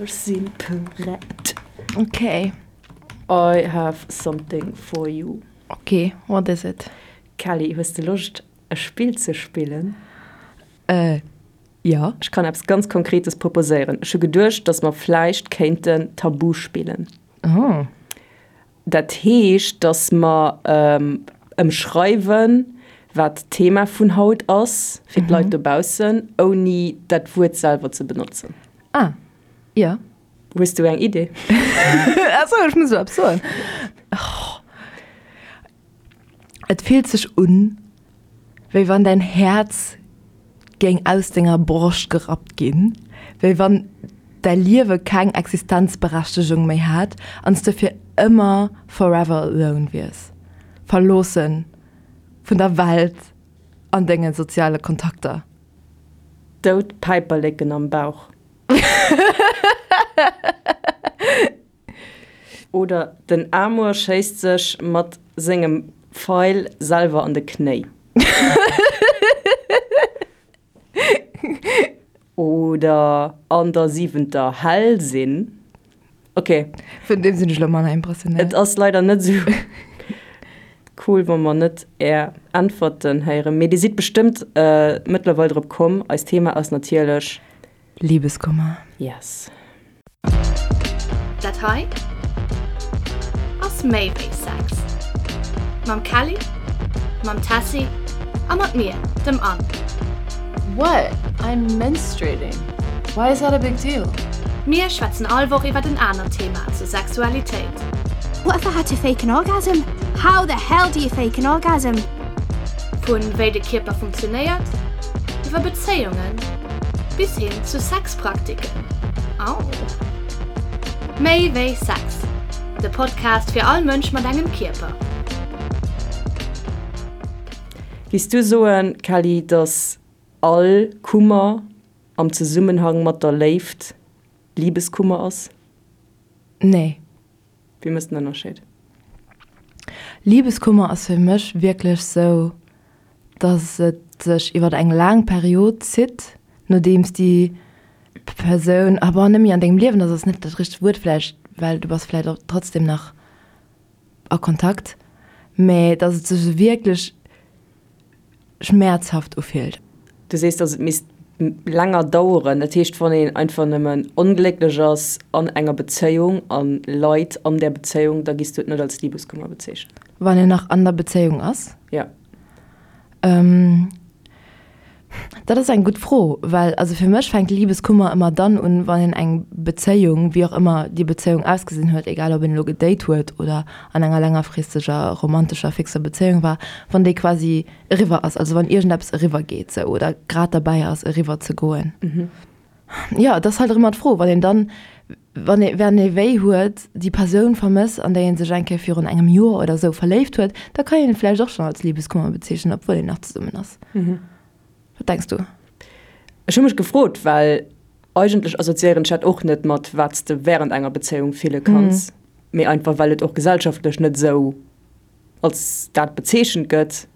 Ech sinn prett. Ok. I have something for you. Ok, what is it? Kelly, hues de Loscht e Spill ze spillen? Äh, jo. Ech kann eppes ganz Konkretes proposéieren. Ech hu geduecht, dass mer vläicht kéinten Tabu spillen. Oh. Dat heescht, dass mer ëmschreiwen, wat d'Thema vun haut ass, fir d'Leit dobaussen, ouni dat Wuert selwer ze benotzen. Ah, jo. Hues du eng Idee? Ach sou, ech muss elo eppes soen. Et fillt sech un, wéi wann däin Häerz géing aus denger Broscht gerappt ginn, wéi wann däi Liewe keng Existenzberechtegung méi hätt an s de fir ëmmer forever alone wiers, verloosse vun der Welt an denge soziale Kontakter. Dout Päiperleken am Bauch. Oder den Amur schéisst sech mat sengem Feil selwer an de Knéi. Oder an der siwenter Hell sinn. Ok. Vun deem sinn ech elo manner impressionéiert. Et ass leider net esou cool, wa mer net är Äntwerten héieren. Mee dir sidd bestëmmt mëttlerweil drop komm, eist Thema ass natierlech. Liebeskummer. Yes. Dat hei ass méi wéi Sex. Mam Kelly, mam Tessy a mat mir, dem Anne. What? I'm menstruating. Why is that a big deal? Mir schwätzen all Woch iwwert en anert Thema zur Sexualitéit. What if I had to fake an orgasm? How the hell do you fake an orgasm? Vun wéi de Kierper funktionéiert, iwwer Bezéiungen bis hin zu Sexpraktiken. Au! Méi wéi Sex, de Podcast fir all Mënsch mat engem Kierper. Giss du soen, Kelly, dass all Kummer am Zesummenhang mat der Léift Liebeskummer ass? Nee. Wéi mëss den Ënnerscheed? Liebeskummer ass fir mech wierklech sou, dass et sech iwwer eng laang Period zitt, nodeems déi Persoun, ah bon, net méi an dengem Liewen ass, ass net dat richtegt Wuert vläicht, well du bass vläicht och trotzdem nach a Kontakt, mä dass et sech esou wierklech schmäerzhaft ufillt. Du sees, dass et misst länger daueren. Dat heescht, wann een einfach nëmmen onglécklech ass an enger Bezéiung a leit an där Bezéiung, da giss du et net als Liebeskummer bezeechnen? Wann een nach an der Bezéiung ass? Jo. Dat ass eng gutt Fro, well also fir mech fänkt Liebeskummer ëmmer dann un, wann een eng Bezéiung, wéi och ëmmer déi Bezéiung ausgesinn huet, egal ob een elo gedate huet oder an enger längerfristeger romantescher fixer Bezéiung war, wann déi quasi eriwwer ass, also wann iergendeppes eriwwer geet sou oder grad derbäi ass eriwwer ze goen. Jo, et ass halt och ëmmer d'Fro, wann een dann, wann ee wann ee wéi huet, déi Persoun vermësst, an déi ee sech eng Kéier virun engem Joer oder sou verléift huet, da kann een et vläicht och schonn als Liebeskummer bezeechnen, obwuel een nach zesummen ass. Wat denks du? Ech hu mech gefrot, well eigentlech assoziéieren ech dat och net mat wat s de wärend enger Bezéiung fille kanns, mee einfach well et och gesellschaftlech net esou als dat bezeechent gëtt.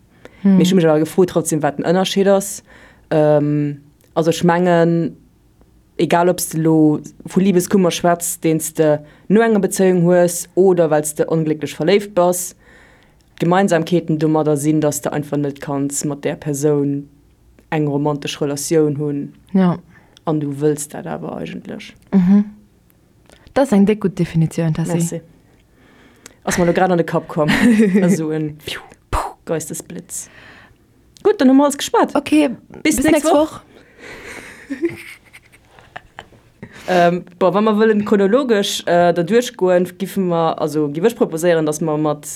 Mee ech hu mech awer gefrot trotzdem, wat den Ënnerscheed ass. Also ech mengen, egal ob s de elo vu Libeskummer schwätz, deen s de no enger Bezéiung hues oder well s de onglécklech verléift bass, d'Gemeinsamkeeten domadder sinn, dass de einfach net kanns mat där Persoun eng romantesch Relatioun hunn. Ja. An du wëlls dat awer eigentlech. Mhm. Dat ass eng déck gutt Definitioun, Tessy. Merci. Ass mer elo grad an de Kapp komm. Esou en Geistesblitz. Gutt, dann hu mer alles geschwat. Ok, bis, bis nächst Woch. Woch. ähm, bon, wa mer wëllen chronologesch äh, derduerch goen, giffe mer, also giff ech proposéieren, dass mer mat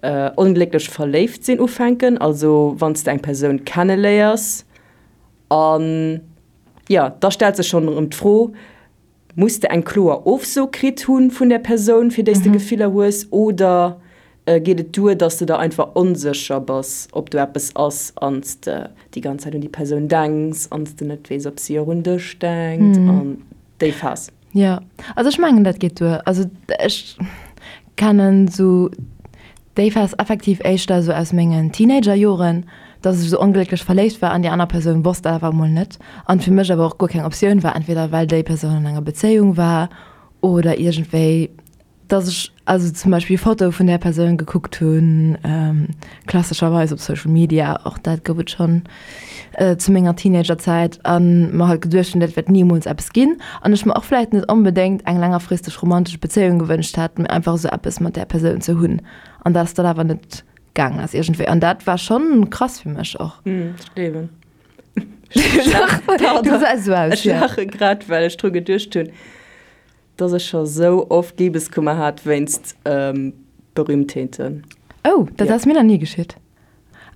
äh, onglécklech verléift sinn ufänken. Also wann s de eng Persoun kenneléiers an ja, da stellt sech schonn erëm d'Fro, Muss de eng kloer Ofso kritt hu vun där Persoun, fir déi s de Gefiller hues, oder geet et duer, dass de der einfach onsécher bass, ob do eppes ass an s de déi ganz Zäit un déi Persoun denks an s de net weess, ob si och un dech denkt an déi Phas? Jo, also ech mengen, dat geet duer. Also ech kennen esou déi Phas effektiv éischter esou aus mengen Teenagerjoren. Dass ech esou onglécklech verléift war an déi aner Persoun wosst dat awer emol net an fir mech awer och guer keng Optioun war, entweder well déi Persoun an enger Bezéiung war oder iergendwéi, dass ech also zum Beispill Fotoe vun där Persoun gekuckt hunn, klassescherweis op Social Media, och dat gouf et schonn zu menger Teenagerzäit, a mer halt geduecht hunn, dat wäert nimools eppes ginn an ech mer och vläicht net onbedéngt eng längerfristeg romantesch Bezéiung gewënscht hätt, mee einfach esou eppes mat där Persoun ze hunn an dass dat awer net gaangen ass iergendwéi an dat war schonn krass fir mech och. Ech gleewen. Ech laache grad, well ech dru geduecht hunn, dass ech scho sou oft Libeskummer hat wéinst Berühmtheeten. Oh, dat ass mir nach ni geschitt.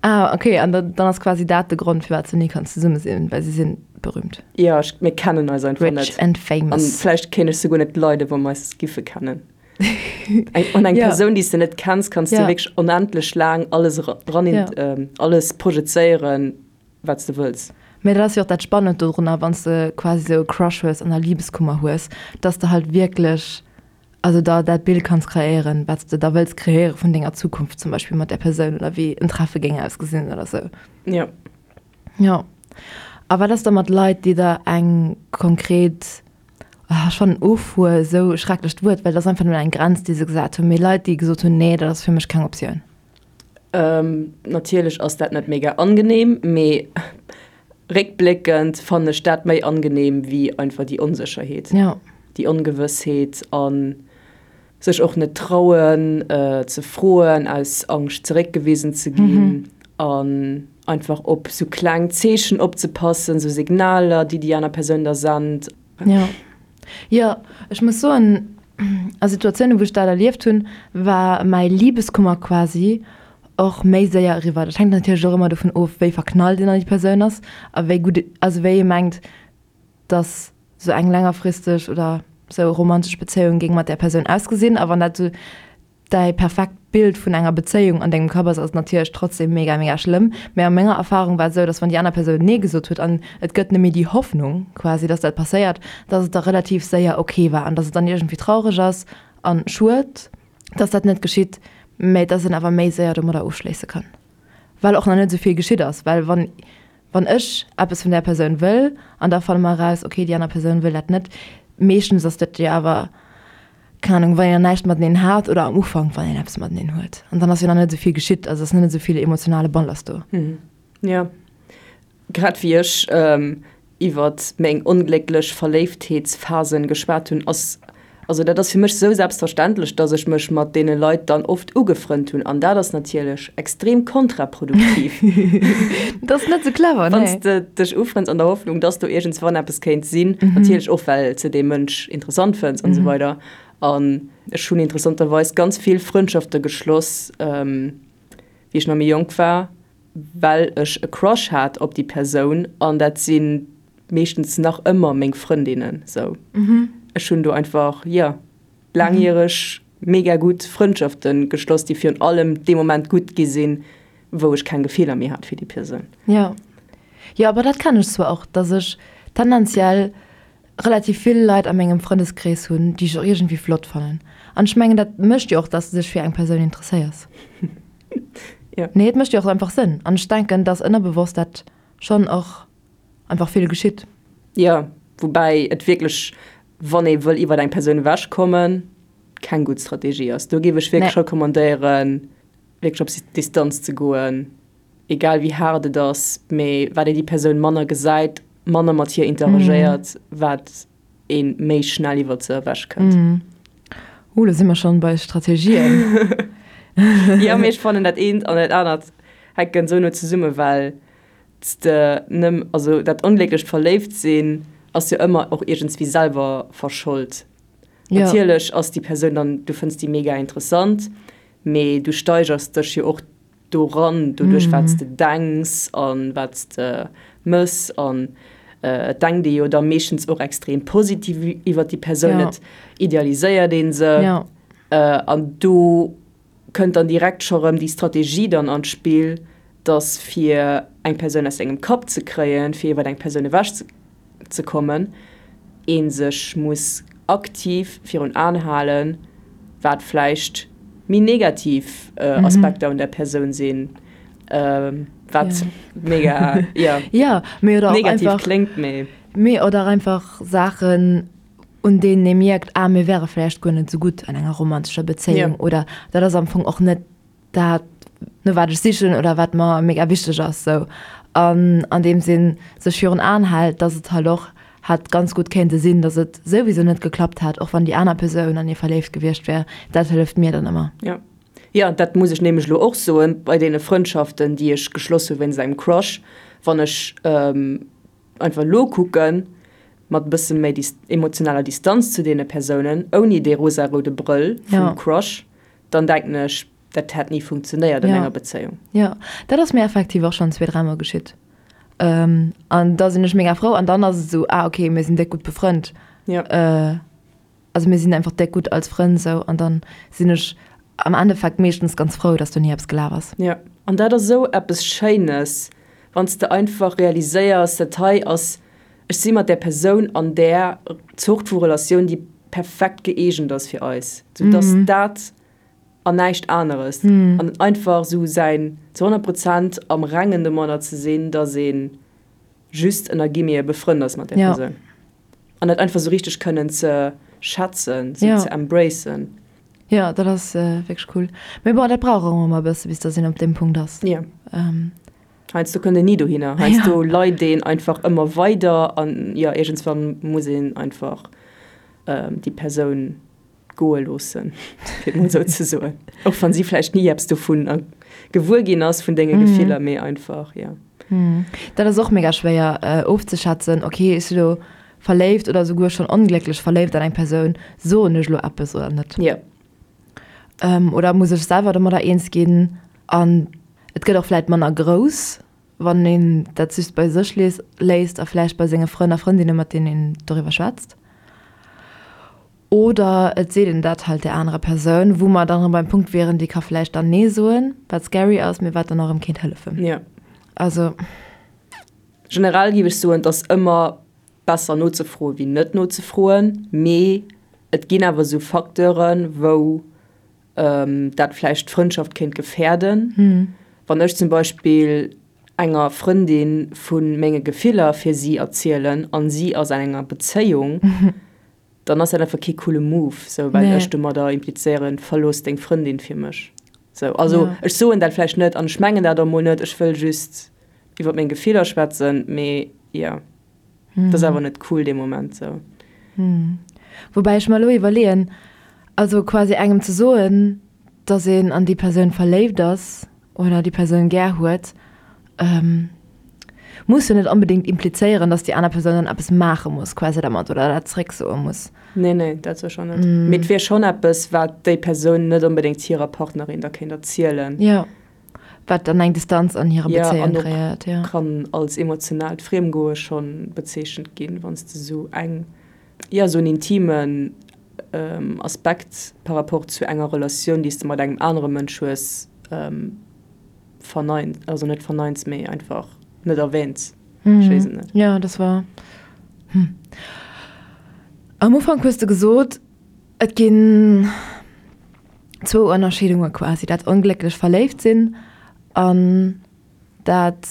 Ah, okay, an dann ass quasi dat de Grond, firwat s de ni kanns zesumme sinn, well si sinn berühmt. Jo, ech, mir kennen eis einfach net. Rich and famous. An vläicht kéint ech souguer net leiden, wa mer eis giffe kennen. Eng, an eng Ja. Persoun, déi s de net kenns, kanns du Ja. wierklech onendlech laang alles eran, Ja. alles projezéieren, wat s de wëlls. Mä dat ass jo och dat Spannend dodrunner, wann s de quasi esou e Crush hues an da Libeskummer hues, dass de halt wierklech, also der dat Bild kanns kreéieren, wat s de da wëlls kreéiere vun denger Zukunft zum Beispill mat där Persoun oder wéi en Treffe géing ausgesinn oder sou. Jo. Jo. A wat ass da mat Leit, déi der eng konkret, ah, ech fannen Offuer esou e schrecklecht Wuert, well et ass einfach nëmmen eng Grenz, déi se gesat hunn, mee Leit, déi gesot hunn, nee, dat ass fir mech keng Optioun. Natierlech ass dat net mega angenehm, mee réckbléckend fannen ech dat méi angenehm wéi einfach déi Onsécherheet, déi Ongewëssheet a sech och net trauen ze froen aus Angscht zeréckgewisen ze ginn an einfach op sou kleng Zeechen opzepassen, sou Signaler, déi déi aner Persoun der sent. Jo, jo, ech muss soen, a Situatiounen, wou ech dat erlieft hunn, war mäi Libeskummer quasi och méi séier eriwwer. Dat hänkt natierlech och ëmmer dovun of, wéi verknallt een an déi Persoun ass a wéi gutt, also wéi ee mengt, dass sou eng längerfristeg oder sou romantesch Bezéiung géing mat där Persoun ausgesinn. A wann dat sou däi perfekt Bild vun enger Bezéiung an dengem Kapp ass, ass et natierlech trotzdem mega, mega schlëmm. Mä a menger Erfarung war et esou, dass wann déi aner Persoun Nee gesot huet an et gëtt net méi déi Hoffnung quasi, dass dat passéiert, dass et da relativ séier ok war an dass et dann iergendwéi traureg ass a schued, dass dat net geschitt, mä dass een awer méi séier domadder ofschléisse kann, well och nach net esou vill geschitt ass. Well wann, wann ech eppes vun där Persoun wëll an da fanne mer eraus, ok, déi aner Persoun wëll dat net, meeschtens ass dat jo awer keng Ahnung, wann een näischt mateneen hat oder am Ufank, wann een eppes mateneen huet. An dann ass jo nach net esou vill geschitt, also ass net esou vill emotionale Ballast do. Jo, grad wéi ech iwwer meng onglécklech Verléiftheetsphasen geschwat hunn, ass, also dat ass fir mech esou selbstverständlech, dass ech mech mat deene Leit dann oft ugefrënnt hunn. An dat ass natierlech extrem kontraproduktiv. Dat ass net esou clever, nee. Wann s de dech ufrënns an der Hoffnung, dass do iergendswann eppes kéint sinn, natierlech och well s de dee Mënsch interessant fënns an esou weider. An ech hunn interessanterweis ganz vill Frëndschafte geschloss, wéi ech nach méi jonk war, well ech e Crush hat op déi Persoun an dat si meeschtens nach ëmmer meng Frëndinnen. Sou, ech hunn do einfach, jo, laangjäreg mega gutt Frëndschafte geschloss, déi virun allem dee Moment gutt gi sinn, wou ech keng Gefiller méi hat fir déi Persoun. Jo, jo, awer dat kennen ech zwar och, dass ech tendenziell relativ vill Leit a mengem Frëndeskrees hunn, déi ech och iergendwéi flott fannen. An ech mengen, dat mécht jo och, dass de dech fir eng Persoun interesséiers. Jo. Nee, et mécht jo och einfach Sënn. An ech denken, dass ënnerbewosst dat schonn och einfach vill geschitt. Jo, woubäi et wierklech, wann ee wëll iwwert eng Persoun ewechkommen, keng gutt Strategie ass. Do géif ech wierklech recommandéieren, wierklech op Distanz ze goen, egal wéi haart et ass, mee wat een déi Persoun manner gesäit, manner mat hir interagéiert, wat ee méi schnell iwwert se ewech kënnt. Uh, lo si mer schonn bei Strategien. Jo, mee ech fannen dat eent an dat anert hänken esou no zesummen, well s de nëmm, also dat onglécklecht Verléiftsinn ass jo ëmmer och iergendswéi selwer verschold. Natierlech ass déi Persoun dann, du fënns déi mega interessant, mee du steigers dech jo och doran, doduerch wat s de denks a wat s de mëss. An et denkt ee jo da meeschtens och extrem positiv iwwer déi Persoun, et idealiséiert ee se. An do kënnt dann direkt scho rëm déi Strategie dann an d'Spill, dass fir eng Persoun aus sengem Kapp ze kréien, fir iwwer eng Persoun ewech ze kommen, ee sech muss aktiv virun Aen halen, wat vläicht méi negativ Aspekter un der Persoun sinn. Wat mega, ja, ja, mee oder och negativ einfach, kléngt, mee. Mee oder einfach Saachen, un deenen ee mierkt, ah, mir wäre vläicht guer net esou gutt an enger romantescher Bezéiung Ja. oder dat ass am Fong och net dat, no wat ech sichen oder wat mer mega wichteg ass sou. An andeems ee sech virun Aen hält, dass et halt och hätt ganz gutt kéinte sinn, dass et souwisou net geklappt hätt, och wann déi aner Persoun an ee verléift gewiescht wär, dat hëlleft mir dann ëmmer. Ja. Jo, dat muss ech nämlech elo och soen, bei deene Frëndschaften, déi ech geschloss hu wéinst engem Crush, wann ech einfach elo kucken, mat e bësse méi emotionaler Distanz zu deene Persounen, ouni dee rosaroude Brëll vum Crush, dann denken ech, dat hätt ni funktionéiert an enger Bezéiung. Jo, dat ass mir effektiv och schonn zweet, dräimol geschitt. An da sinn ech mega frou an dann ass et esou, ah okay, mir sinn déck gutt befrënnt. Also mir sinn einfach déck gutt als Frënn sou an dann sinn ech am Endeffekt meeschtens ganz frou, dass do ni eppes gelaf ass. Jo, an dat ass esou eppes Schéines, wann s de einfach realiséiers, dat hei ass, ech si mat där Persoun an där Zort vu Relatioun, déi perfekt gëeegent ass fir eis, sou dass dat an näischt aneres an einfach sou säin zu 100 Prozent am Rengen domadder ze sinn, dass ee just ënner Guillemete befrënnt ass mat där Persoun. An dat einfach sou richteg kënnen ze schätzen, sou ze embracen. Jo, dat ass wierklech cool. Mee bon, dat brauch och ëmmer e bësse bis dass een op deem Punkt ass. Jo. Heiansdo kënnt een ni dohinner. Heiansdo leit een einfach ëmmer weider an jo, iergendswann muss een einfach déi Persoun goe loossen, fir et mol esou ze soen. Och wann si vläicht ni eppes dovun gewuer ginn ass, vun denge Gefiller, mee einfach, jo. Dat ass och mega schwéier ofzeschätzen, ok, ech si lo verléift oder esouguer schonn onglécklech verléift an eng Persoun, soen ech lo eppes oder net? Jo. Oder muss ech selwer domadder eens ginn? An et gëtt och vläicht manner grouss, wann een dat just bei sech léisst a vläicht bei senge Frënn a Frëndinne mat deenen een doriwwer schwätzt. Oder et seet een dat halt där anerer Persoun, wou mer dann erëm beim Punkt wieren, déi ka vläicht dann Nee soen, wat scary ass, mee wat dann och erëm kéint hëllefen. Jo. Also. Generell géif ech soen, et ass ëmmer besser nozefroen, wéi net nozefroen. Mee et ginn awer esou Facteuren, wou dat vläicht d'Frëndschaft kéint gefäerden. Wann ech zum Beispill enger Frëndin vu menge Gefiller fir si erzielen an si ass an enger Bezéiung, dann ass dat einfach kee coole Move, sou, well ech domadder implizéieren, verlooss deng Frëndin fir mech. Sou, also ech soen dat vläicht net an ech mengen dat och mol net, ech wëll just iwwer meng Gefiller schwätzen, mee jo, dat ass awer net cool dee Moment, sou. Woubäi ech mer elo iwwerleeën, also quasi engem ze soen, dass een an déi Persoun verléift ass oder déi Persoun gär huet, muss jo net onbedéngt implizéieren, dass déi aner Persoun dann eppes maache muss quasi dermat oder dat zerécksoe muss. Nee, nee, dat sécher net. Mee et wier schonn eppes, wat déi Persoun net onbedéngt hirer Partnerin da kéint erzielen. Jo, wat dann eng Distanz an hirer Bezéiung kreéiert, jo. An och kann als emotionaalt Friemgoe schonn bezeechent ginn, wann s de esou eng, jo, esou en intimen Aspekt par rapport zu enger Relatioun, déi s de mat engem anere Mënsch hues, verneint, also net verneins, mee einfach net erwähns. Ech weess et net. Jo, dat war, hm. Am Ufank hues de gesot, et ginn zwou Ënnerscheedunge quasi, dat onglécklech verléift sinn an dat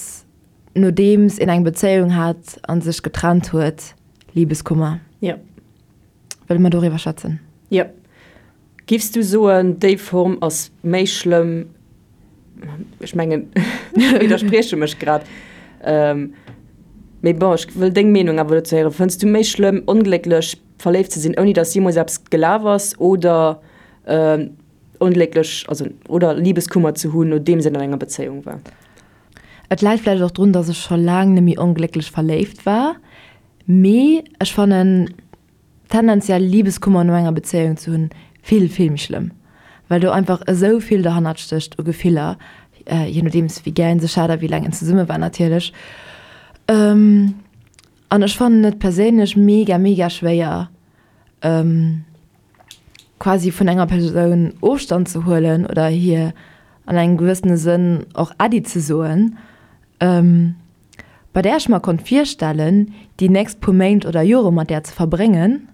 nodeems een eng Bezéiung hat a sech getrennt huet, Libeskummer. Jo. Wëlle mer doriwwer schwätzen? Jo. Giffs du soen, déi Form ass méi schlëmm? Ech mengen, ech widdersprieche mech grad. Mee bon, ech wëll deng Meenung awer dozou héieren. Fënns du méi schlëmm, onglécklech verléift ze sinn, ouni datt jeemools eppes gelaf ass, oder onglécklech, also oder Libeskummer ze hunn, nodeems een an enger Bezéiung war? Et läit vläicht och drun, datt ech scho laang net méi onglécklech verléift war, mee ech fannen tendenziell Libeskummer no enger Bezéiung ze hunn vill, vill méi schlëmm, well do einfach esou vill derhannert stécht u Gefiller, je nodeems wéi gär een sech hat a wéi laang een zesumme war natierlech. An ech fannen et perséinlech mega, mega schwéier quasi vun enger Persoun Ofstand ze huelen oder hir an engem gewëssene Sënn och Äddi ze soen. Bei där ech mer konnt virstellen, déi nächst puer Méint oder Jore mat där ze verbréngen.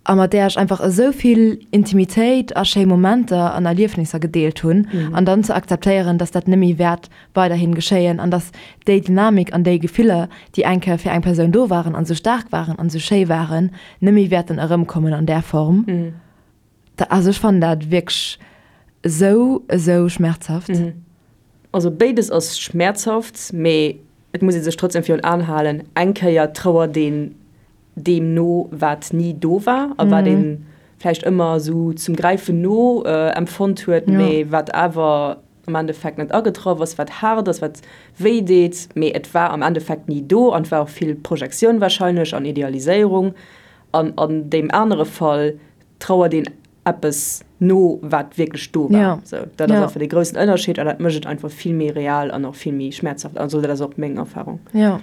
A mat där ech einfach esou vill Intimitéit a schéi Momenter an Erliefnisser gedeelt hunn. An dann ze akzeptéieren, dass dat nëmme wäert weiderhin geschéien an dass déi Dynamik an déi Gefiller, déi eng Kéier fir eng Persoun do waren an esou staark waren an esou schéi waren, nëmme wäerten erëmkommen an där Form. Also ech fannen dat wierklech esou, esou schmerzhaft. Also béides ass schmerzhaft, mee et muss ee sech trotzdem virun Aen halen, eng Kéier trauert een deem no, wat ni do war a wat ee vläicht ëmmer esou zum Gräifen no empfonnt huet, mee wat awer am Endeffekt net agetraff ass, wat haart ass, wat wéi deet, mee et war am Endeffekt ni do an et war och vill Projektioun warscheinlech an Idealiséierung. An an deem anere Fall trauert een eppes no, wat wierklech do war. Sou, dat ass einfach dee groussen Ënnerscheed an dat mécht et einfach vill méi real an och vill méi schmäerzhaft. Also dat ass och meng Erfarung. Jo.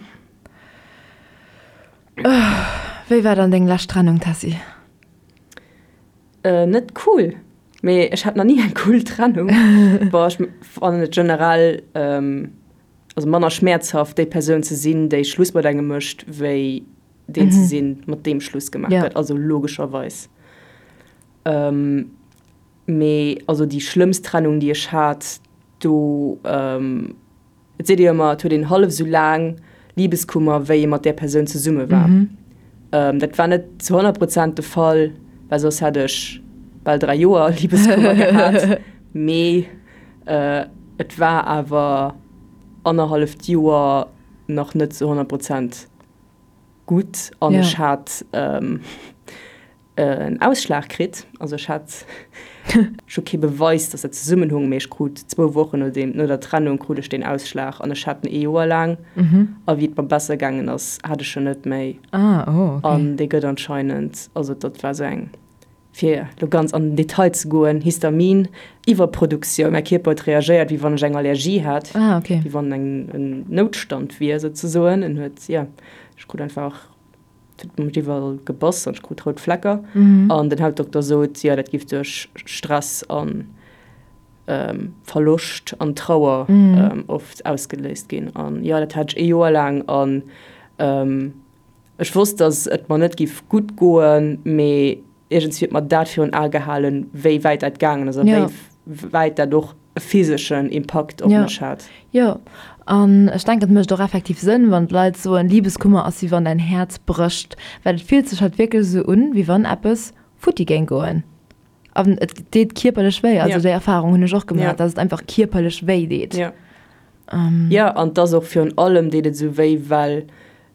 Wéi war dann deng lescht Trennung, Tessy? Net cool, mee ech hat nach ni eng cool Trennung. Bon, ech fannen et generell also manner schmäerzhaft, déi Persoun ze sinn, déi Schluss mat engem mécht, wéi deen ze sinn, mat deem Schluss gemaach gëtt, also logescherweis. Mee also déi schlëmmst Trennung, déi ech hat, do. Et seet ee jo ëmmer, et huet een hallef esou laang Libeskummer, wéi ee mat där Persoun zesumme war. Dat war net zu 100 Prozent de Fall, well soss hätt ech bal 3 Joer Libeskummer gehat. Mee et war awer annerhalleft Joer nach net zu 100 Prozent gutt an ech hat en Ausschlag kritt. Also ech hat, ech hu kee Beweis, datt dat zesummen hung, mee ech krut zwou Wochen no deem, no der Trennung krut ech deen Ausschlag an ech hat en ee Joer laang. A wéi et mer besser gaangen ass, hat ech en net méi. Ah, oh, okay. An dee gëtt anscheinend, also dat war sou eng, fir lo ganz an den Detail ze goen, Histamin-Iwwerproduktioun. Mäi Kierper huet reagéiert, wéi wann ech eng Allergie hätt, Ah, okay. wéi wann eng en Noutstand wier souzesoen. En huet, jo, ech krut einfach. Et huet mech iwwerall gebass an ech krut rout Flecker. An den Hautdokter sot, jo, dat giff duerch Stress an Verloscht an Trauer oft ausgeléist ginn. An jo, dat hat ech ee Joer laang. An ech wosst, datt et mer net giff gutt goen, mee Iergendswéi huet mer dat virun Ae gehalen, wéi wäit dat gaangen ass a wéi wäit dat och e physeschen Impakt op mech hat. Jo, an ech denken, et mécht och effektiv Sënn, wann d'Leit soen, Libeskummer ass wéi wann däin Häerz brécht, well et fillt sech halt wierklech esou un, wéi wann eppes futti géing goen. An et deet kierperlech wéi. Also déi Erfarung hunn ech och gemaach, dass et einfach kierperlech wéi deet. Jo, jo, an et ass och virun allem deet et esou wéi, well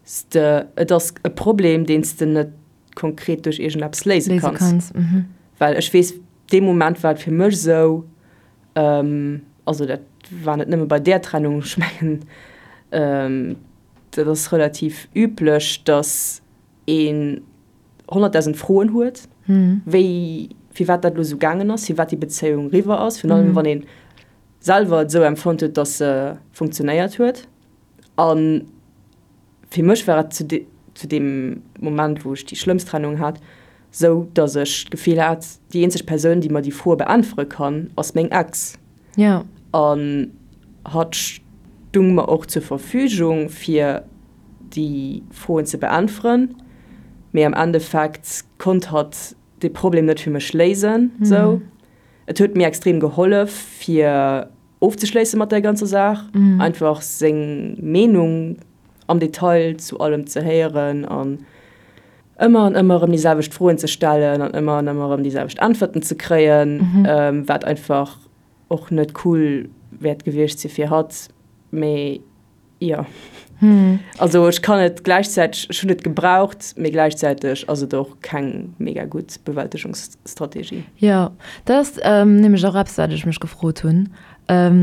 s de, et ass e Problem, deen s de net konkret duerch iergendeppes léise kanns. Well ech weess, dee Moment war et fir mech esou, also dat war net nëmme bei där Trennung, ech mengen, dat ass relativ üblech, datt een 100.000 Froen huet, wéi, firwat dat elo esou gaangen ass, firwat déi Bezéiung eriwwer ass, virun allem wann ee selwer et esou empfonnt huet, datt se funktionéiert huet. An Fir mech war et zu zu deem Moment, wou ech déi schlëmmst Trennung hat, sou, datt ech d'Gefill hat, déi eenzeg Persoun, déi mer déi Froe beäntwere kann, ass meng Ex. Jo. An hatt stung mer och zur Verfügung, fir déi Froen ze beäntweren, mee am Endeffekt konnt hatt dee Problem net fir mech léisen. Sou, et huet mir extrem gehollef, fir ofzeschléisse mat där ganzer Saach, einfach seng Meenung am Detail zu allem ze héieren an ëmmer an ëmmer erëm déi selwecht Froen ze stellen an ëmmer an ëmmer erëm déi selwecht Äntwerten ze kréien, wat einfach och net cool wäert gewiescht si fir hatt. Mee Jo. Also ech kann et gläichzäiteg, ech hunn et gebraucht, mee gläichzäiteg ass et och keng mega gutt Bewältegungsstrategie. Jo, dat ass nämlech och eppes, wat ech mech gefrot hunn,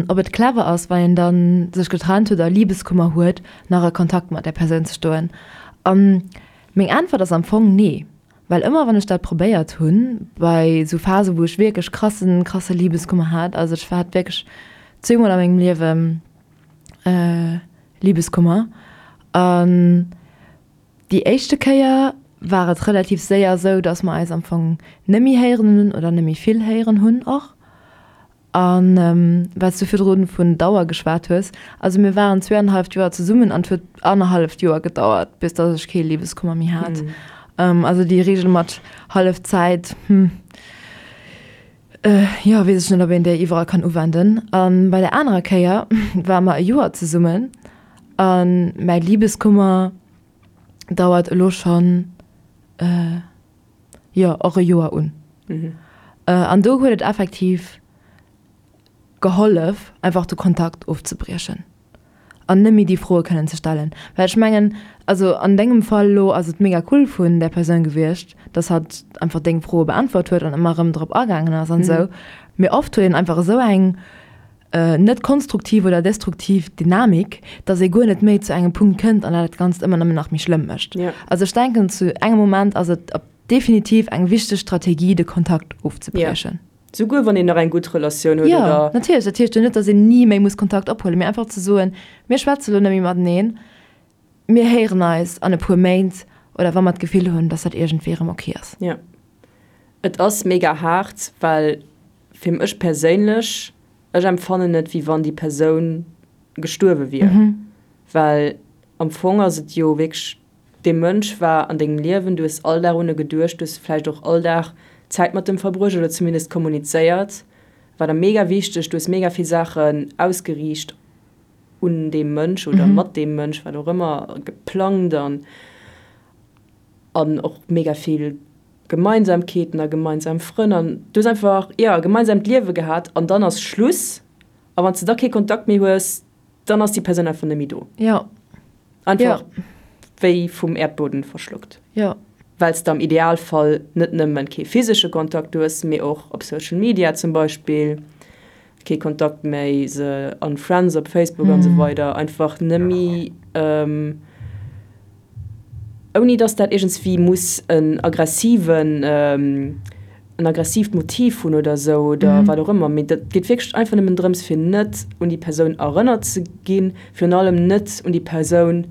ob et clever ass, wann een dann sech getrennt huet a Libeskummer huet, nach a Kontakt mat där Persoun ze stoen. A meng Äntwert ass am Fong nee, well ëmmer wann ech dat probéiert hunn, bei esou Phasen, wou ech wierklech krassen, krasse Libeskummer hat, also ech hat wierklech zweemol a mengem Liewen, Libeskummer. An déi éischte Kéier war et relativ séier esou, datt mer eis am Fong net méi héieren hunn oder net méi vill héieren hunn och. An wat s du virdru vun Dauer geschwat hues, also mir waren zweeanenhalleft Joer zesummen an et huet annerhalleft Joer gedauert, bis datt ech kee Libeskummer méi hat. Also déi Reegel mat hallef Zäit, hm, jo, weess ech net, ob een déi iwwerall kann uwenden. A bei der anerer Kéier ware mer e Joer zesummen a mäi Libeskummer dauert elo schonn, jo, och e Joer un. An do huet et effektiv gehollef, einfach de Kontakt ofzebriechen an net méi déi Froe kënnen ze stellen. Well ech mengen, also an dengem Fall elo ass et mega cool vun där Persoun gewiescht, dass hatt einfach deng Froe beäntwert huet an ëmmer erëm drop agaangen ass an esou. Mee oft huet een einfach esou eng net konstruktiv oder destruktiv Dynamik, dass ee guer net méi zu engem Punkt kënnt an dat dat Ganzt ëmmer nëmmen nach méi schlëmm mécht. Also ech denken, zu engem Moment ass et definitiv eng wichteg Strategie, de Kontakt ofzebriechen. Souguer wann een nach eng gutt Relatioun huet, Jo, oder? natierlech. Dat heescht jo net, datt een ni méi muss Kontakt ophuelen, mee einfach ze soen, Mir schwätze lo net méi mateneen, mir héieren eis an e puer Méint oder wa mer d'Gefill hunn, datt dat iergendwéi erëm ok ass. Jo. Et ass mega haart, well fir mech perséinlech, ech empfannen et, wéi wann déi Persoun gestuerwe wier. Well am Fong ass et jo wierklech Dee Mënsch war an dengem Liewen, du hues all Dag un e geduecht, du hues vläicht och all Dag Zäit mat em verbruecht oder zumindest kommunizéiert, war der mega wichteg, du hues mega vill Saachen ausgeriicht un deem Mënsch oder mat deem Mënsch, wat och ëmmer, geplangt an an och mega vill Gemeinsamkeeten a gemeinsam Frënn an du hues einfach, jo, e gemeinsamt Liewe gehat an dann ass Schluss a wann s de da kee Kontakt méi hues, dann ass déi Persoun einfach net méi do. Jo. Einfach ja. wéi vum Äerdboden verschluckt. Jo. Well s de am Idealfall net nëmmen kee physesche Kontakt hues, mee och op Social Media zum Beispill kee Kontakt méi, se unfriends op Facebook an esou weider, einfach nëmmi ouni dass dat iergendswéi muss en aggressiven, en aggressiivt Motiv hunn oder esou oder wat och ëmmer, mee dat geet wierklech einfach nëmmen drëms fir net un déi Persoun erënnert ze ginn, virun allem net un déi Persoun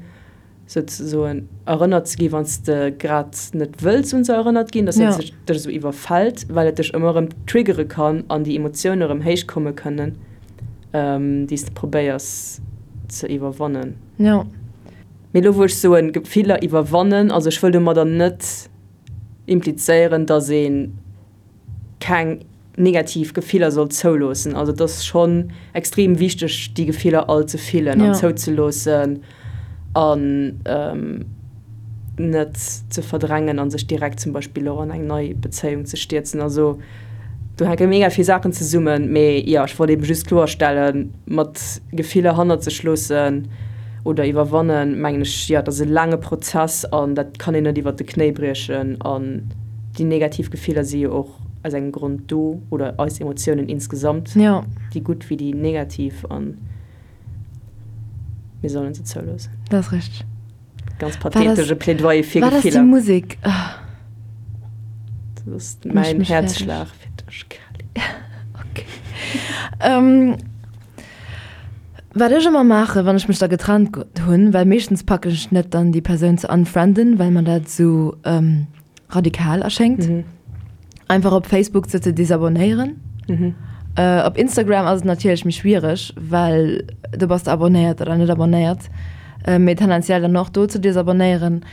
souzesoen erënnert ze ginn, wann s de grad net wëlls un se erënnert ginn, dass dat sech dech esou iwwerfält, well et dech ëmmer erëm triggere kann an déi Emotioune erëm héich komme kënnen, déi s de probéiers ze iwwerwannen. Jo. Mee elo wou ech soen Gefiller iwwerwannen, also ech wëll domadder net implizéieren, datt ee keng negativ Gefiller soll zouloossen. Also et ass schonn extrem wichteg déi Gefiller all ze fillen an zouzeloossen an net ze verdrängen an sech direkt zum Beispill och an eng nei Bezéiung ze stierzen. Also do hänke mega vill Saachen zesummen, mee jo, ech wollt eben just kloerstellen, mat Gefiller hannert sech loossen oder iwwerwannen, mengen ech, jo, dat ass e laange Prozess an dat kann een net iwwert de Knéi briechen an déi negativ Gefiller si jo och aus engem Grond do oder eis Emotiounen insgesamt, déi gutt wéi déi negativ an mir sollen se zouloossen. Dat ass richteg. Ganz pathetesche Plädoyer fir Gefiller. Wat ass déi Musek? Dat ass mäin Häerzschlag fir dech, Kelly. Ok. Wat ech ëmmer maachen, wann ech mech da getrennt hunn, well meeschtens packen ech net dann déi Persoun ze unfrienden, well mer dat esou radikal erschéngt, einfach op Facebook se ze desabonnéieren. Op Instagram ass et natierlech méi schwiereg, well do bass de abonnéiert oder net abonnéiert, mee tendenziell dann och do ze desabonnéieren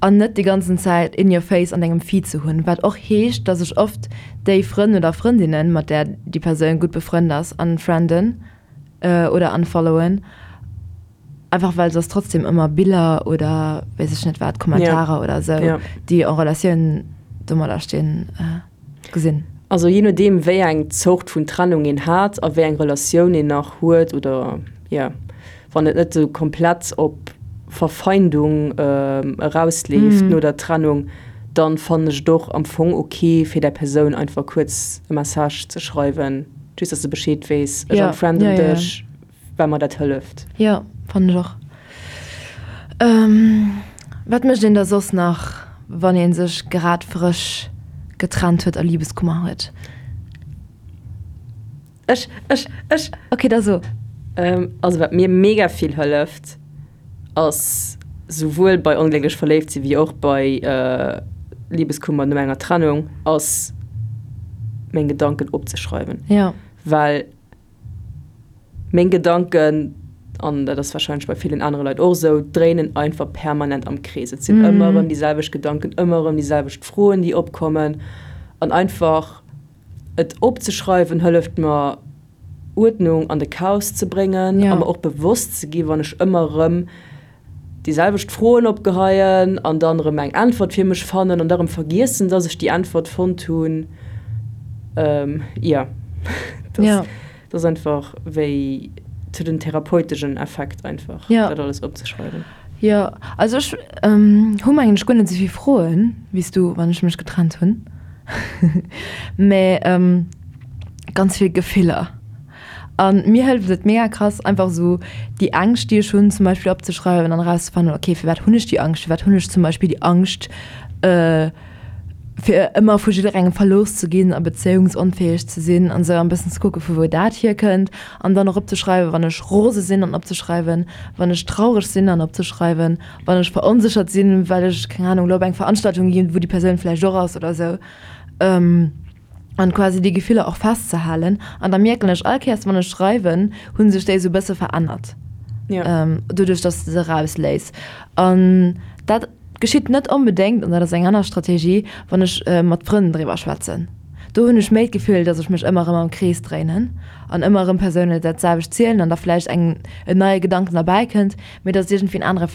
an net déi ganzen Zäit in your face an dengem Feed ze hunn, wat och heescht, dass ech oft déi Frënn oder Frëndinnen, mat där déi Persoun gutt befrënnt ass, unfrienden oder unfollowen. Einfach well soss trotzdem ëmmer Biller oder weess ech net wat, Kommentarer oder esou, déi en Relatioun domadder stinn, gesinn. Also jee nodeem wéi eng Zort vun Trennung een hat a wéi eng Relatioun een nach huet oder jo, wann et net esou komplett op Verfeindung erausleeft no der Trennung, dann fannen ech et och am Fong ok fir där Persoun einfach kuerz e Message ze schreiwen, just dass se Bescheed weess, ech unfrienden dech. Well mer dat hëlleft. Jo, fannen ech och. Wat mécht een da soss nach, wann ee sech grad frësch getrennt huet a Libeskummer huet? Ech, ech, ech! Ok, da so. Also wat mir mega vill hëlleft, ass souwuel bei onglécklech verléift si wéi och bei Libeskummer no enger Trennung, ass meng Gedanken opzeschreiwen. Jo. Well Meng Gedanken. an dat ass warscheinlech bei villen anere Leit och esou, dréinen einfach permanent am Krees. Et sinn ëmmer erëm déi selwecht Gedanken, ëmmer erëm déi selwecht Froen, déi opkommen. An einfach et opzeschreiwen hëlleft mer, Uerdnung an de Chaos ze bréngen a mer och bewosst ze ginn, wann ech ëmmer erëm déi selwecht Froen opgeheien an dann erëm eng Äntwert fir mech fannen an da erëm vergiessen, dass ech déi Äntwert fonnt hunn. Jo, dat ass einfach wéi, et huet en therapeutegen Effekt einfach, dat alles opzeschreiwen. Jo, also ech hu mengen ech guer net esou vill Froen wéi s du, wann ech mech getrennt hunn, mä ganz vill Gefiller. An mir hëlleft et mega krass einfach esou déi Ängscht déi ech hunn zum Beispill opzeschreiwen an erauszefannen, okay firwat hunn ech déi Angscht, firwat hunn ech zum Beispill déi Angscht fir ëmmer vu jidderengem verlooss ze ginn a bezéiungsonfäeg ze sinn an esou an e bëssen ze kucke vu wou dat hierkënnt an dann och opzeschreiwen wann ech rose sinn an opzeschreiwen wann ech traureg sinn an opzeschreiwen wann ech veronséchert sinn well ech keng Ahnung elo op eng Veranstaltung ginn wou déi Persoun vläicht och ass oder esou. An quasi déi Gefiller och festzehalen. An da mierken ech all Kéiers, wann ech schreiwen, hu sech déi esou e bësse verännert. Doduerch, dass de se erausléiss. An dat geschitt net onbedéngt, an dat ass eng aner Strategie, wann ech mat Frënn driwwer schwätzen. Do hunn ech méi d'Gefill, dass ech mech ëmmer erëm am Krees dréinen an ëmmer erëm Persounen dat selwecht zielen an da vläicht eng en neie Gedanken derbäikënnt, mee dass et iergendwéi en anere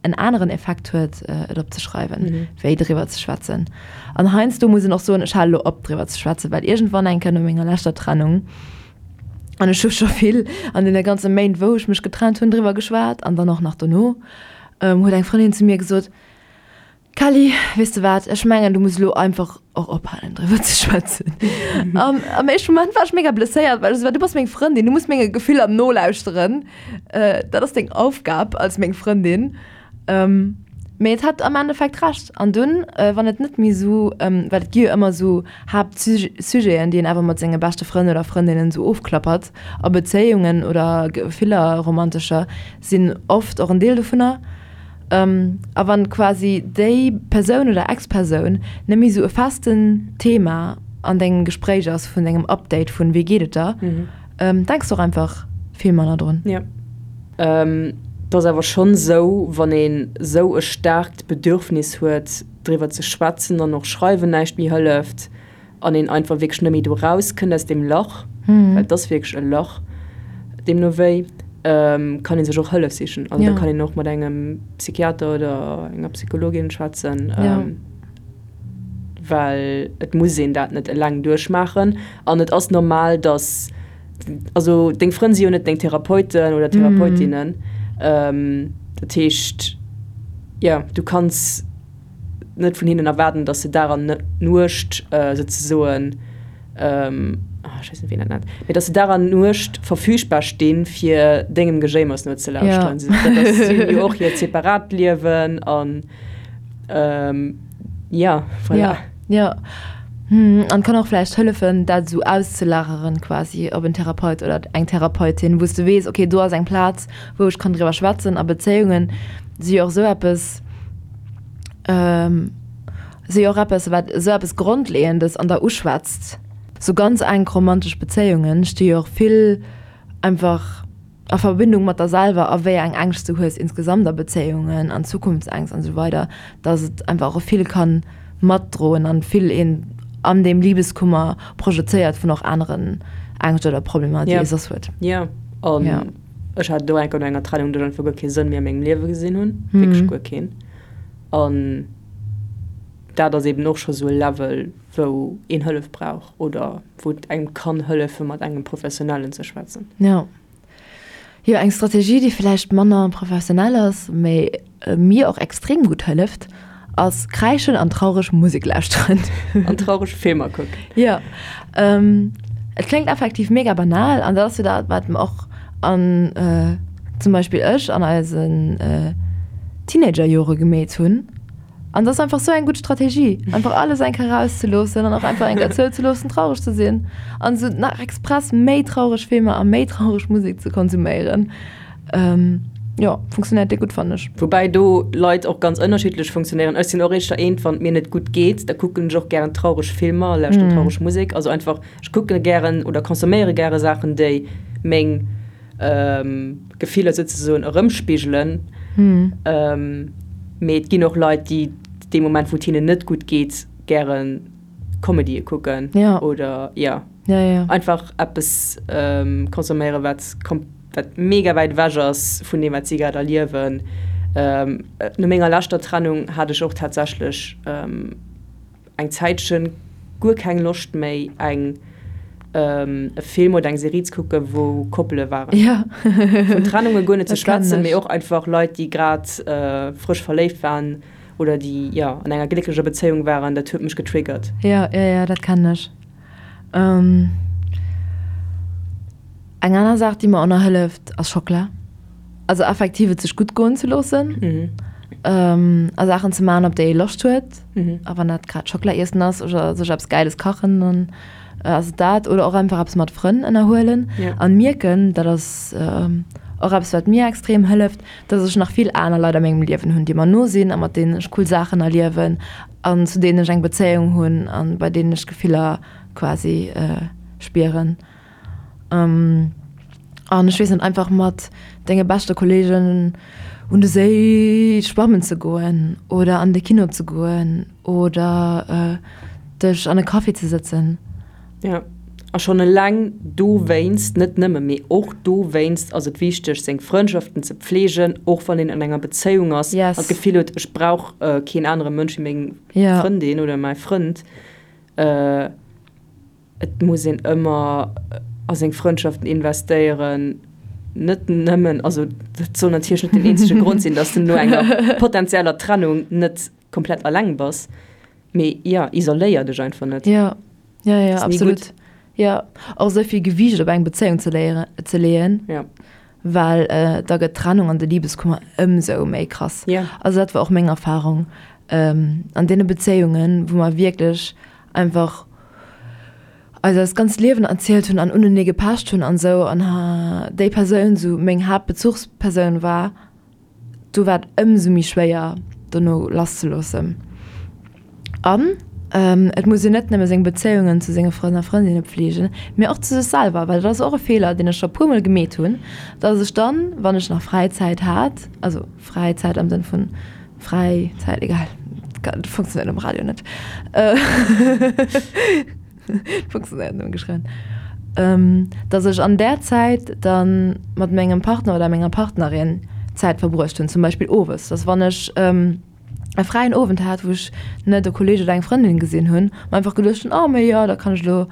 en aneren Effekt huet, et opzeschreiwen, wéi driwwer ze schwätzen. An heiansdo muss een och soen, ech hale lo op, driwwer ze schwätzen, well iergendwann eng Kéier no menger leschter Trennung, an ech hu scho vill an deene ganze Méint, wou ech mech getrennt hunn, driwwer geschwat an dann och nach dono, huet eng Frëndin zu mir gesot, Kelly, weess de wat, ech mengen, du muss elo einfach och ophalen driwwer ze schwätzen. An am éischte Moment war ech mega blesséiert, well ech esou war, du bass meng Frëndin, du muss menge Gefiller nolauschteren, dat ass deng Aufgab als meng Frëndin. Mee et hat am Endeffekt Recht. An dunn, wann et net méi esou, well et gi jo ëmmer esou Haaptsujeten, déi een awer mat senge beschte Frënn oder Frëndinnen esou ofklappert, a Bezéiungen oder Gefiller, romantescher, sinn oft och en Deel dovunner. A wann quasi déi Persoun oder Ex-Persoun net méi sou e festen Thema an dengem Gespréich ass, vun dengem Update vun wéi geet et der, denks de och einfach vill manner drun. Jo. Et ass awer schonn sou, wann een sou e staarkt Bedürfnis huet driwwer ze schwätzen an och schreiwen näischt méi hëlleft, an een einfach wierklech net méi do raus kënnt aus deem Lach, well et ass wierklech e Lach, deemno wéi, kann ee sech och Hëllef sichen. Also da kann een och mat engem Psychiater oder enger Psychologin schwätzen, well et muss een dat net eleng duerchmaachen. An et ass normal, datt, also deng Frënn si jo net deng Therapeuten oder Therapeutinnen, dat heescht, jo, du kanns net vun hinnen erwaarden, datt se Dag an Nuecht souzesoen, ech weess net wéi een dat nennt, mee datt se Dag an Nuecht verfügbar stinn, fir dengem Gejéimers nozelauschteren. Ja. Dat ass, si hunn jo och hiert separat Liewen an ja, voilà. Ja, ja. An kann och vläicht hëllefen, dat esou auszelageren quasi op en Therapeut oder eng Therapeutin, wou s de weess, okay, do ass eng Plaz, wou ech kann driwwer schwätzen. A Bezéiunge si jo och esou eppes, si jo och eppes, wat esou eppes Grondleeëndes an der uschwätzt. Sou ganz enk romantesch Bezéiunge sti jo och vill einfach a Verbindung mat der selwer a wéi eng Ängscht s du hues insgesamt a Bezéiungen an Zukunftsängst an esou weider, dass et einfach och vill ka matdroen an vill een an deem Libeskummer projezéiert vun och aneren Ängscht oder Problemer, déi ee soss huet. Jo, an Ech hat do enker no enger Trennung, do ech einfach guer kee Sënn méi a mengem Liewe gesinn hunn, wierklech guer keen. An dat ass eben och scho sou e Level, wou een Hëllef brauch oder wou et engem kann hëllefen, mat engem Professionellen ze schwätzen. Jo. Jo, eng Strategie, déi vläicht manner professionell ass, mee mir och extrem gutt hëlleft, ass kräischen an traureg Musek lauschteren. An traureg Filmer kucken. Jo. Et kléngt effektiv mega banal an dat ass jo dat, wat mer och an, zum Beispill ech, an eisen Teenagerjore gemeet hunn. An dat ass einfach sou eng gutt Strategie, einfach alles eng Kéier erauszeloossen an och einfach eng Kéier zouzeloossen, traureg ze sinn an esou nach express méi traureg Filmer a méi traureg Musek ze konsuméieren. Jo, funktionéiert déi gutt, fannen ech. Woubäi do Leit och ganz ënnerschiddlech funktionéieren. Ech sinn och éischter eent, wann et mir net gutt geet, da kucken ech och gären traureg Filmer a lauschteren traureg Musek. Also einfach, ech kucke gären oder consomméiere gäre Saachen, déi meng. Gefiller souzesoen erëmspigelen. Mee et ginn och Leit, déi dee Moment, wou et hinnen net gutt geet, gäre Komedië kucken oder jo einfach eppes consomméieren, wat wat mega wäit ewech ass vun deem, wat si grad erliewen. No menger leschter Trennung hat ech och tatsächlech eng Zäitchen guer keng Loscht méi eng e Film oder eng Serie ze kucken, wou Koppele waren. Ja. Vun Trennunge guer net ze Dat kennen schwätzen, mee ech. och einfach Leit, déi grad frësch verléift waren oder déi, jo, an enger glécklecher Bezéiung waren, dat huet mech getriggert. Ja, ja, ja, dat kennen ech. Eng aner Saach, déi mer och nach hëlleft, ass Schockela. Also effektiv et sech gutt goen ze loossen a Saachen ze maachen, op déi ee Loscht huet. A wann dat grad Schockela iessen ass oder sech eppes Gäiles kachen, dann ass et dat. Oder och einfach eppes mat Frënn ënnerhuelen an mierken, dat ass och eppes, wat mir extrem hëlleft, dass ech nach vill aner Leit a mengem Liewen hunn, déi mer no sinn a mat deenen ech cool Saachen erliewen an zu deenen ech eng Bezéiung hunn a bei deenen ech Gefiller quasi spieren. An ech weess net, einfach mat denge beschte Kolleegen un de Séi schwammen ze goen oder an de Kino ze goen oder dech an e Café ze sëtzen. Jo, a schonn eleng dowéinst, net nëmme, mee och dowéinst ass et wichteg, seng Frëndschaften ze pfleegen, och wann een an enger Bezéiung ass an d'Gefill huet, ech brauch keen anere Mënsch wéi meng Frëndin oder mäi Frënd. Et muss een ëmmer a seng Frëndschaften investéieren, net nëmmen, also dat soll natierlech net den eenzege Grond sinn, dass de no enger potenzieller Trennung net komplett alleng bass, mee jo, isoléier dech einfach net. Jo, jo, jo, absolut. Jo, och esou vill Gewiicht op eng Bezéiung ze léieren, ze leeën, well da gëtt d'Trennung an de Libeskummer ëmsou méi krass. Also dat war och meng Erfarung an deene Bezéiungen, wou mer wierklech einfach eis eist ganzt Liewen erzielt hunn an unenee gepecht hunn an esou an déi Persoun esou meng Haaptbezuchspersoun war, do war et ëmsou méi schwéier dono lasszeloossen. An et muss een net nëmme seng Bezéiungen zu senge Frënn a Frëndinne pfleegen, mee och zu sech selwer, well dat ass och e Feeler, deen ech scho puermol gemeet hunn, dass ech dann, wann ech nach fräi Zäit hat, also fräi Zäit am Sënn vun Fräi Zäit, egal, dat funktionéiert um Radio net. Funktionéiert nëmme geschriwwen. Datt ech an där Zäit da mat mengem Partner oder menger Partnerin Zäit verbruecht hunn, zum Beispill owes, datt wann ech e fräien Owend hat, wou ech net e Kolleeg oder eng Frëndin gesinn hunn, mer einfach geduecht hunn, oh mee jo, da kann ech elo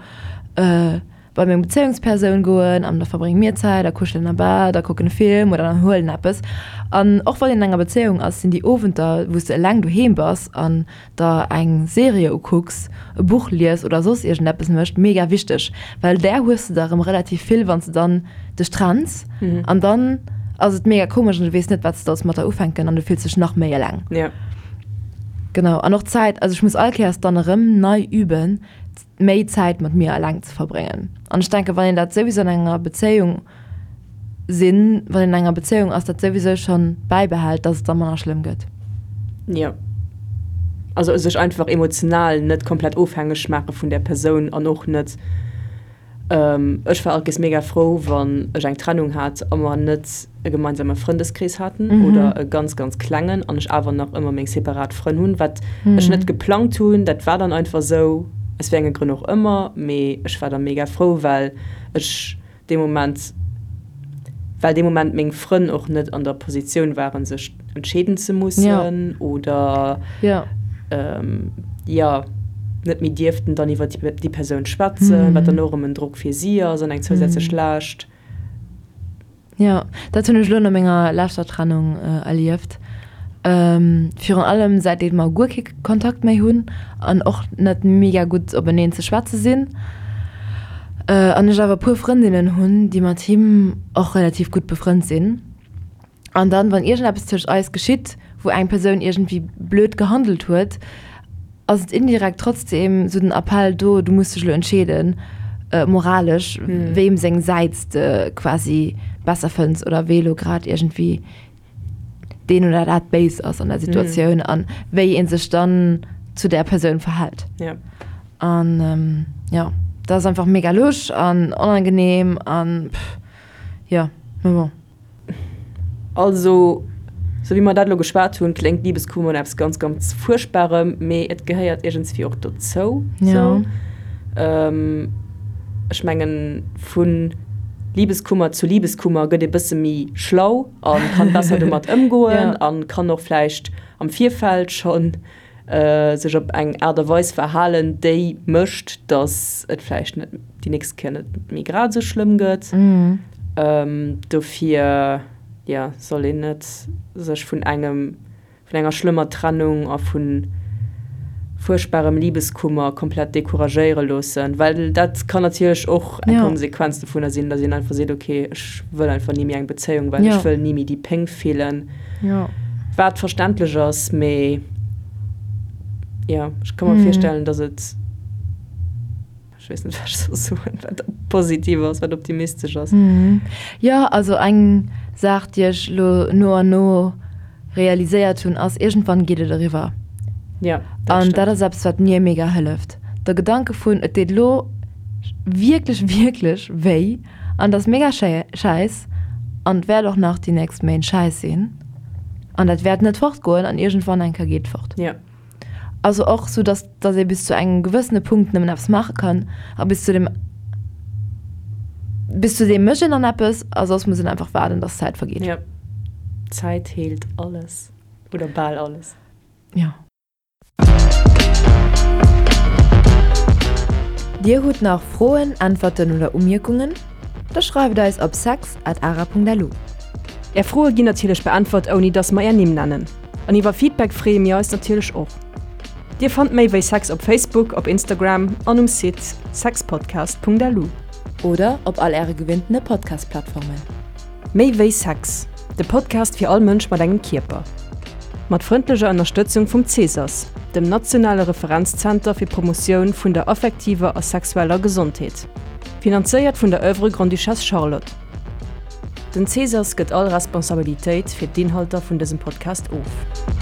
bei meng Bezéiungspersoun goen an da verbrénge mir Zäit a kuschelen am Bett a kucken e Film oder huelen eppes. An och wann een an enger Bezéiung ass, sinn déi Owenter, wou s de eleng doheem bass an der eng Serie ukucks, e Buch lies oder soss iergendeppes mécht, mega wichteg, well där hues de der erëm relativ vill, wann s de dann dech trenns. An dann ass et mega komesch an du weess net, wat s de solls mat der ufänken an du fills dech nach méi eleng. Genau. An och d'Zäit, also ech muss all Kéiers dann erëm nei üben, méi Zäit mat mir eleng ze verbréngen. An ech denken, wann een dat souwisou an enger Bezéiung sinn, wann een an enger Bezéiung ass, dat souwisou schonn bäibehält, dass et da manner schlëmm gëtt. Jo. Also sech einfach emotional net komplett ofhängeg maache vun där Persoun an och net, ech war alt mega frou, wann ech eng Trennung hat a mer net e gemeinsame Frëndeskrees haten oder e ganz, ganz klengen an ech awer nach ëmmer meng separat Frënn hunn, wat ech net geplangt hunn, dat war dann einfach esou, aus wéi enge Grënn och ëmmer, mee ech war da mega frou, well ech dee Moment, well dee Moment meng Frënn och net an der Positioun waren, sech entscheeden ze mussen oder jo, net méi dierften dann iwwer déi Persoun schwätzen, wat dann och erëm en Drock fir si ass an eng zousätzlech Laascht. Jo, dat hunn ech elo no menger leschter Trennung erlieft. Virun allem säitdeem mer guer kee Kontakt méi hunn an och net mega gutt openeen ze schwätze sinn. An ech awer e puer Frëndinnen hunn, déi mat him och relativ gutt befrënnt sinn. An dann, wann iergendeppes tëscht eis geschitt, wou eng Persoun iergendwéi blöd gehandelt huet, ass et indirekt trotzdem sou den Appell do, du muss dech elo entscheeden, moralesch, weem seng Säit s de quasi besser fënns oder wee elo grad iergendwéi deen oder dat béis ass an der Situatioun an wéi ee sech dann zu där Persoun verhält. An jo, dat ass einfach mega lusch an onangenehm an jo. Mä bon. Also, sou wéi mer dat elo geschwat hunn, kléngt Libeskummer no eppes ganz, ganz Fuerchtbarem, mee et gehéiert iergendswéi och dozou. Ja. Sou. Ech mengen, vu Libeskummer zu Libeskummer gëtt ee bësse méi schlau a kann besser domat ëmgoen a kann och vläicht am Virfeld schonn sech op eng Aart a Weis verhalen, déi mécht, datt et vläicht net déi nächst Kéier net méi grad esou schlëmm gëtt. Dofir, jo, soll een net sech vun engem, vun enger schlëmmer Trennung a vu fuerchtbarem Libeskummer komplett decouragéiere loossen, well dat kann natierlech och eng Konsequenz dovunner sinn, datt een einfach seet, okay, ech wëll einfach ni méi eng Bezéiung, well ech wëll ni méi déi Péng fillen. Wat verständlech ass, mee jo, ech ka mer virstellen, datt et, ech weess net, wat ech soll soen, wat positiv ass, wat optimistesch ass. Jo, also eng Saach, déi ech elo no an no realiséiert hunn, ass, iergendwann geet et eriwwer. Jo, dat An stëmmt. dat ass eppes, wat mir mega hëlleft. Der Gedanke vun, et deet elo wierklech, wierklech wéi An et ass mega schäiss an et wäert och nach déi nächst Méint schäiss sinn an dat wäert net fortgoen an iergendwann eng Kéier geet et fort. Jo. Also och sou, dass dass ee bis zu engem gewëssene Punkt nëmmen eppes maache kann a bis zu deem bis zu deem mécht een dann eppes a soss muss een einfach waarden, dass d'Zäit vergeet. Jo. D'Zäit heelt alles oder bal alles. Jo. Dir hutt nach Froen, Äntwerten oder Umierkungen? Da schreift eis op sex at ara.lu. Är Froe ginn natierlech beäntwert ouni dass mer är Nimm nennen. An iwwer Feedback freeë mir eis natierlech och. Dir fannt méi wéi Sex op Facebook, op Instagram an um Site sexpodcast.lu. Oder op all äre gewinntene Podcast-Plattformen. Méi wéi Sex, de Podcast fir all Mënsch mat engem Kierper. Mat frëndlecher Ënnerstëtzung vum CSAS, dem nationale Referenzzenter fir d'Promotioun vun der affektiver a sexueller Gesondheet. Finanzéiert vun der Oeuvre Grande-Duchesse Charlotte. Den CSAS gëtt all Responsabilitéit fir d'Inhalter vun dësem Podcast of.